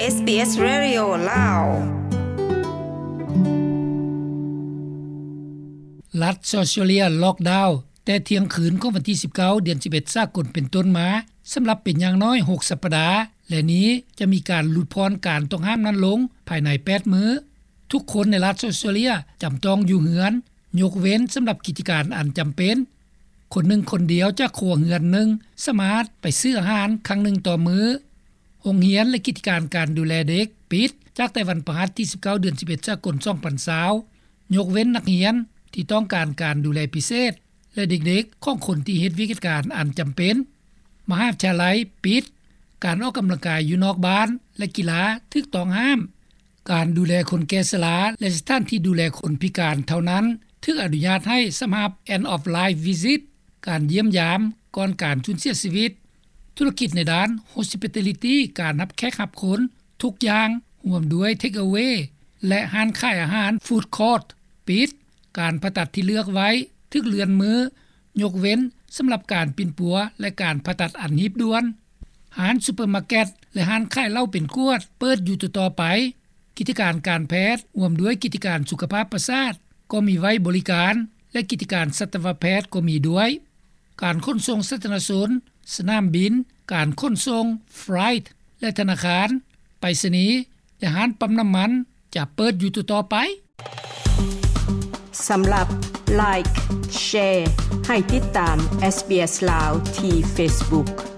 SBS Radio ລາວ. ລັດອອສເຕຣເລຍລັອກດາວແຕ່ທ່ຽງຄືນຂອງວັນທີສິບເກົ້າ ເດືອນສິບເອັດ ສາກົນເປັນຕົ້ນມາ ສຳລັບເປັນຢ່າງໜ້ອຍຫົກສັບປະດາ ແລະນີ້ຈະມີການຫຼຸດຜ່ອນການຕ້ອງຫ້າມນັ້ນລົງພາຍໃນແປດມື້. ທຸກຄົນໃນລັດອອສເຕຣເລຍຈຳຕ້ອງຢູ່ເຮືອນ ຍົກເວັ້ນສຳລັບກິດຈະການອັນຈຳເປັນ. ຄົນໜຶ່ງຄົນດຽວຈາກຄົວເຮືອນໜຶ່ງສາມາດໄປຊື້ອາຫານຄັ້ງໜຶ່ງຕໍ່ມື້. ໂຮງຮຽນ ແລະ ກິດຈະການການດູແລເດັກປິດຈາກແຕ່ວັນພະຫັດທີສິບເກົ້າ ເດືອນສິບເອັດ ສາກົນ ສອງພັນຊາວ ຍົກເວັ້ນນັກຮຽນທີ່ຕ້ອງການການດູແລພິເສດ ແລະ ເດັກໆຂອງຄົນທີ່ເຮັດວຽກກິດຈະການອັນຈຳເປັນ. ມະຫາວິທະຍາໄລປິດ. ການອອກກຳລັງກາຍຢູ່ນອກບ້ານ ແລະ ກິລາຖືກຕ້ອງຫ້າມ. ການດູແລຄົນແກ່ຊະລາ ແລະ ສະຖານທີ່ດູແລຄົນພິການເທົ່ານັ້ນຖືກອະນຸຍາດໃຫ້ສຳລັບ End of Life Visit ການຢ້ຽມຢາມກ່ອນການສູນເສຍຊີວິດ. ທຸລະກິດໃນດ້ານ Hospitality ການຮັບແຂກຮັບຄົນ ທຸກຢ່າງ ຮວມດ້ວຍ Take Away ແລະ ຮ້ານຂາຍອາຫານ Food Court ປິດ. ການຜ່າຕັດທີ່ເລືອກໄວ້ຖືກເລື່ອນມື້ ຍົກເວັ້ນສຳລັບການປິ່ນປົວ ແລະ ການຜ່າຕັດອັນຮີບດ່ວນ. ຮ້ານຊຸບເປີມາເກັດ ແລະ ຮ້ານຂາຍເຫຼົ້າເປັນຂວດເປີດຢູ່ຕໍ່ໆໄປ. ກິດຈະການການແພດ ຮ່ວມດ້ວຍກິດຈະການສຸຂະພາບປະສາດກໍມີໄວ້ບໍລິການ ແລະ ກິດຈະການສັດຕະວະແພດກໍມີດ້ວຍ. ການຂົນສົ່ງສາທາລະນະຊົນ, ສະໜາມບິນ, ການຂົນສົ່ງ, Freight ແລະ ທະນາຄານ, ໄປສະນີ ແລະ ຮ້ານປ້ຳນ້ຳມັນຈະເປີດຢູ່ຕໍ່ໆໄປ. ສຳລັບ Like, Share ໃຫ້ຕິດຕາມ SBS ລາວ ທີ່ Facebook.